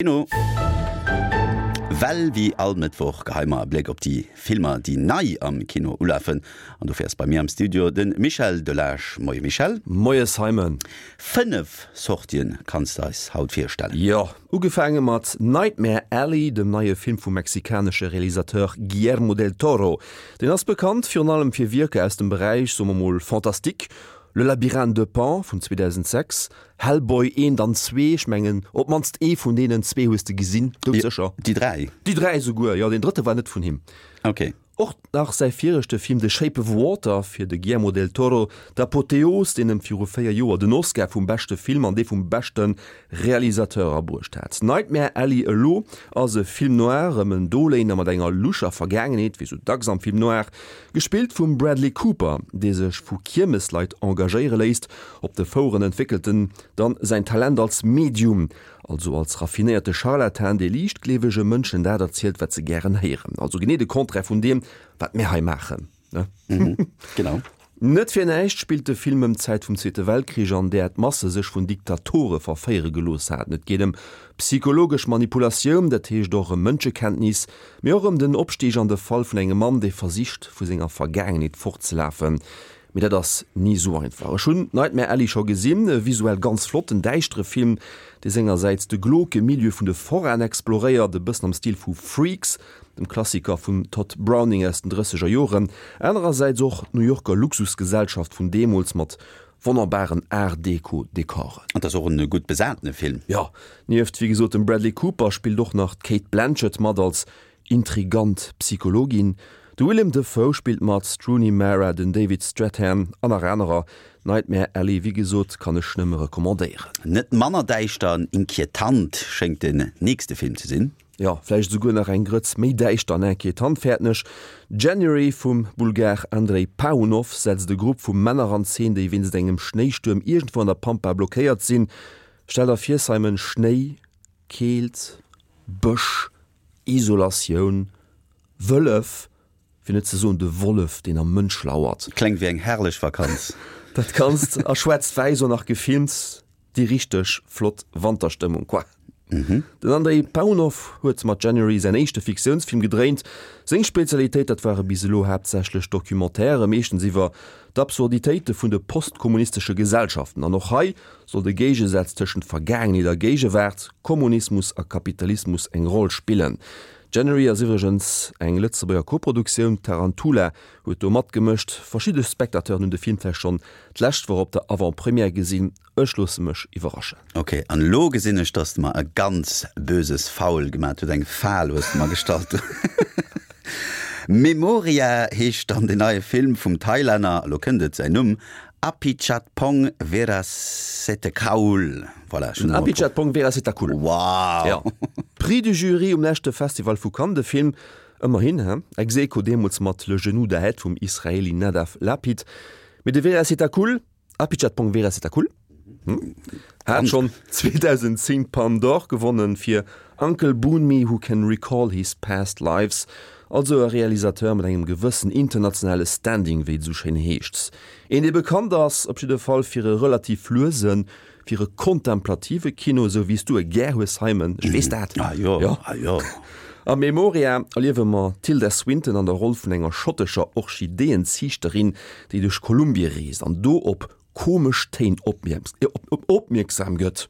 Kino. Well wéi all Mëttwoch geheie mer e Bléck op déi Filmer, déi nei am Kino ulafen. An dofir ass bei mir am Studio de Michel Delage. Moie Michel. Moie Simon. 5 Sortien kanns de eis haut virstellen. Jo, ugefaange mat Nightmare Alley, dem neie Film vum mexikanesche Realisateur Guillermo del Toro. Deen ass bekannt virun allem fir Wierker aus dem Beräich, soe mer mol, Fantastique, Le Labyrinthe de Pan vun 2006, Hellboy eent an zwee, ech mengen op d'mannst ee vun deenen zwee hues de gesinn, doudsécher. Déi 3? Déi 3 esouguer, jo, deen drëtte war net vun him. Ok. Och nach säi viregte Film The Shape of Water fir de Guillermo del Toro, d'Apotheos, deen em viru 4 Joer den Oscar vum beschte Film an dee vum beschte Realisateur abruecht hat. Nightmare Alley elo ass e Film noir ëm en Doléiner mat enger loucher Vergaangenheet, wéi sou dacks am Film noir, gespillt vum Bradley Cooper, dee sech vu Kiermesleit engagéiere léisst, Op de Foueren entwéckelt en dann säin Talent als Medium, also als raffinéierte Scharlatan, dee liichtgleewege Mënschen dat erzielt, wat se gären héieren. Also genee de Contraire vun deem, wat mir hei maachen, ne? Genau. Net fir näischt spillt de Film ëm d'Zäit vum Zweete Weltkrich, an där d'Masse sech vun Diktatore verféiere gelooss haten. Et geet ëm psychologesch Manipulatioun, dat heescht och ëm Mënschekenntnis, mee och ëm den Opstig an de Fall vun engem Mann, dee versicht, vu senger Vergaangenheet fortzelafen. Mee dat ass ni sou einfach. Ech hunn Nightmare Alley scho gesinn, e visuell ganz flotten, däischtere Film, dee sengersäits de glauque Milieu vun de Foraen exploréiert, e bëssen am Stil vu Freaks, dem Klassiker vum Tod Browning aus den drësseger Joren, anerersäits och d'New Yorker Luxusgesellschaft vun deemools mat wonnerbaren Art-Deco-Dekoren. An 't ass och en gutt besatene Film. Jo, nieft wéi gesot dem Bradley Cooper spillt och nach d'Cate Blanchett mat als Intrigant Psychologin, de Willem Dafoe spillt mat, d'Rooney Mara, den David Strathairn an nach anerer. Nightmare Alley, wéi gesot, kann ech nëmme recommandéieren. Net manner däischter an inquietant schéngt den nächste Film ze sinn. Jo, vläicht esouguer nach eng Grëtz méi däischter an inquietant, fäerten ech. January vum Bulgar Andrei Paunov setzt e Grupp vu Männer an Zeen, déi wéinst engem Schnéistuerm iergendwou an der Pampa blockéiert sinn. Stell der vir, Simon, Schnéi, Keelt, Bësch, Isolatioun, Wëllef, fir net ze soen de Wollef, deen am Mënsch lauert. Klengt wéi eng herrlech Vakanz. Dat Ganzt a schwaarz-wäiss och nach gefilmt, déi richteg flott Wanterstëmmung quoi. Den Andrei Paunov huet mat January säin éischte Fiktiounsfilm gedréint. Seng Spezialitéit, dat ware bis elo haaptsächlech Documentairë, meeschtens iwwer d'Absurditéite vun de postkommunistesche Gesellschaften. An och hei soll de Géigesaz tëschent Vergaangenheet a Géigewaart, Kommunismus a Kapitalismus eng Roll spillen. January ass iwwregens eng Lëtzebuerger Koproduktioun, Tarantula huet do matgemëscht. Verschidde Spectateuren hunn de Film vläicht schonn d'lescht Woch op der Avant-Première gesinn. Ech loosse mech iwwerraschen. Ok, an elo gesinn ech, dass de mer e ganz böses Foul gemat huet, eng Fal hues de mer gestallt. Memoria heescht dann den neie Film vum Thailänner, elo kënnt et, säin Numm, Apichatpong Weerasethakul. Voilà, ech hunn emol. Apichatpong Weerasethakul. Wow! Ja. Prix du Jury um leschte Festival vu Cannes, de Film, ëmmerhin, he, ex aequo deemools mat Le genou d'Ahed vum Israeli Nadav Lapid. Mee de Weerasethakul, Apichatpong Weerasethakul, hat schonn 2010 d'Palme d'Or gewonnen fir Uncle Boonmee Who Can Recall His Past Lives, also e Realisateur mat engem gewëssen internationale Standing, wéi et esou schéin heescht. Een, dee bekannt ass, op jidde Fall fir e relativ luesen, fir e kontemplative Kino, esou wéi s du e gär hues, Simon, ech weess dat. Ah jo, ah jo. A Memoria erliewe mer d'Tilda Swinton an der Roll vun enger schottescher Orchideeënziichterin, déi duerch Kolumbie reest an do op komesch Téin opmierksam gëtt.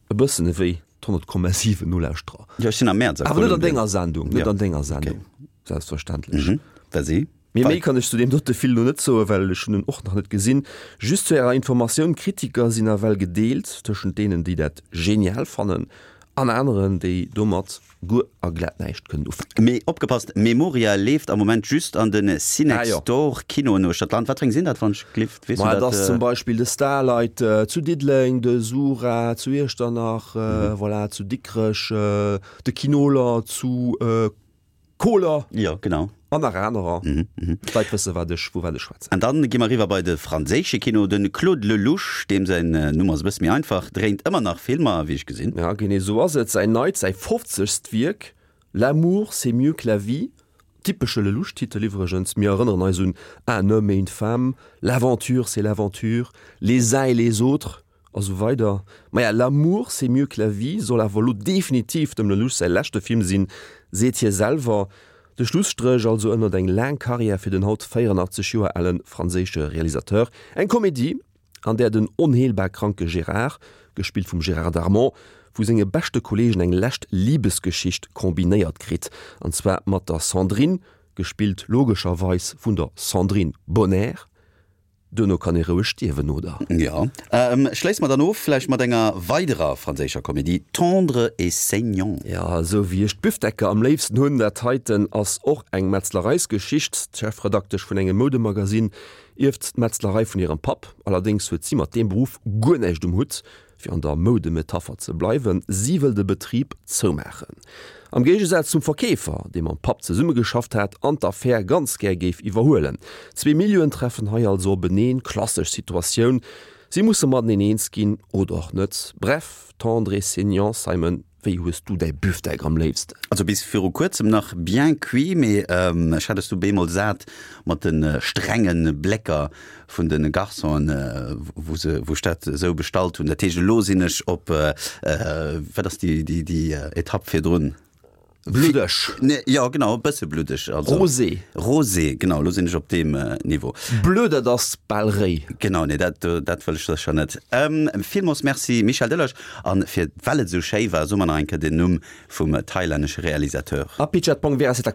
E bëssen ewéi d'100,7 Nolauschterer. Jo, ech sinn am Mäerz a Awer net an denger Sendung, net an denger Sendung, selbstverständlech. Vas-y. Mee méi kann ech zu deem dote Film lo net soen, well ech hunn en och nach net gesinn. Just zu ärer Informatioun, D'Kritiker sinn nawell gedeelt tëschent deenen, déi dat genial fannen, an aneren, déi domat guer a glat näischt kënnen ufänken. Mee opgepasst, Memoria leeft am Moment just an de Cinextdoor Kinoen uechter d'Land. Wat fir eng sinn dat, wann ech glift? Weess du dat? Et ass zum Beispill de Starlight zu Diddeleng, de Sura zu Iechternach, voilà, zu Dikrech, de Kinoler zu Koler. Jo, genau. An nach anerer. D'Leit wësse wat ech, vu wat ech schwätzen. An dann gi mer eriwwer bei de franséische Kino. De Claude Lelouch, deem säin Numm ass e bësse méi einfach, dréint ëmmer nach Filmer, wéi ech gesinn. Ja, genee esou ass et. Säin neit, säi fofzegst Wierk, L'amour, c'est mieux que la vie, typesche Lelouch-Titel iwwregens, mir erënneren eis un Un homme et une femme, L'aventure, c'est l'aventure, Les uns et les autres. A sou weider. Maja, L'amour c'est mieux que la vie soll awer elo definitiv dem Lelouch säi leschte Film sinn, seet hie selwer. De Schlusstréch also ënnert eng laang Karriär fir den haut 84 Joer ale franséische Realisateur. Eng Komedie, an där den onheelbar kranke Gérard, gespillt vum Gérard Darmon, vu senge beschte Kolleegen eng lescht Libesgeschicht kombinéiert kritt, an zwar mat der Sandrine, gespillt logescherweis vun der Sandrine Bonnaire. Duerno kann ee roueg stierwen, oder? Jo. Schléisse mer dann of vläicht mat enger weiderer franséischer Komedie, Tendre et saignant. Jo, esou wéi ech d'Bifdecker am léifsten hunn. Dat heiten ass och eng Metzlereisgeschicht. D'Chefredaktesch vun engem Moudemagazin ierft d'Metzlerei vun hirem Papp. Allerdéngs huet si mat deem Beruff guer näischt um Hutt. Fir an der Moudemetapher ze bleiwen, si wëll de Betrib zoumaachen. Am Géigesaz zum Verkeefer, dee mam Papp zesummegeschafft hat an d'Affär ganz gär géif iwwerhuelen. Zwee Milieuen treffen hei also openeen, klassesch Situatioun, si musse mateneen eens ginn oder och net. Bref, tendre et saignant, Simon, wéi hues du däi Büfdeck am léifsten? Also bis viru kuerzem nach bien cuit, mee ech hat es du bemol sat mat de strenge Blécker vun de Garçonen, wou se, wou ech dat esou bestallt hunn. Dat heescht, elo sinn ech op, wat ass déi, déi, déi Etapp virdrun? Bluddeg. Nee, jo, genau, e bësse bluddeg. Also, Rosé. Rosé, genau, elo sinn ech op deem Niveau. Bleu, dat ass bal réi. Genau, nee, dat, dat wëll ech sécher net. Villmools Merci, Michel Delage. An fir, well et esou schéi war, soe mer nach eng Kéier den Numm vum thailännesche Realisateur. Apichatpong Weerasethakul.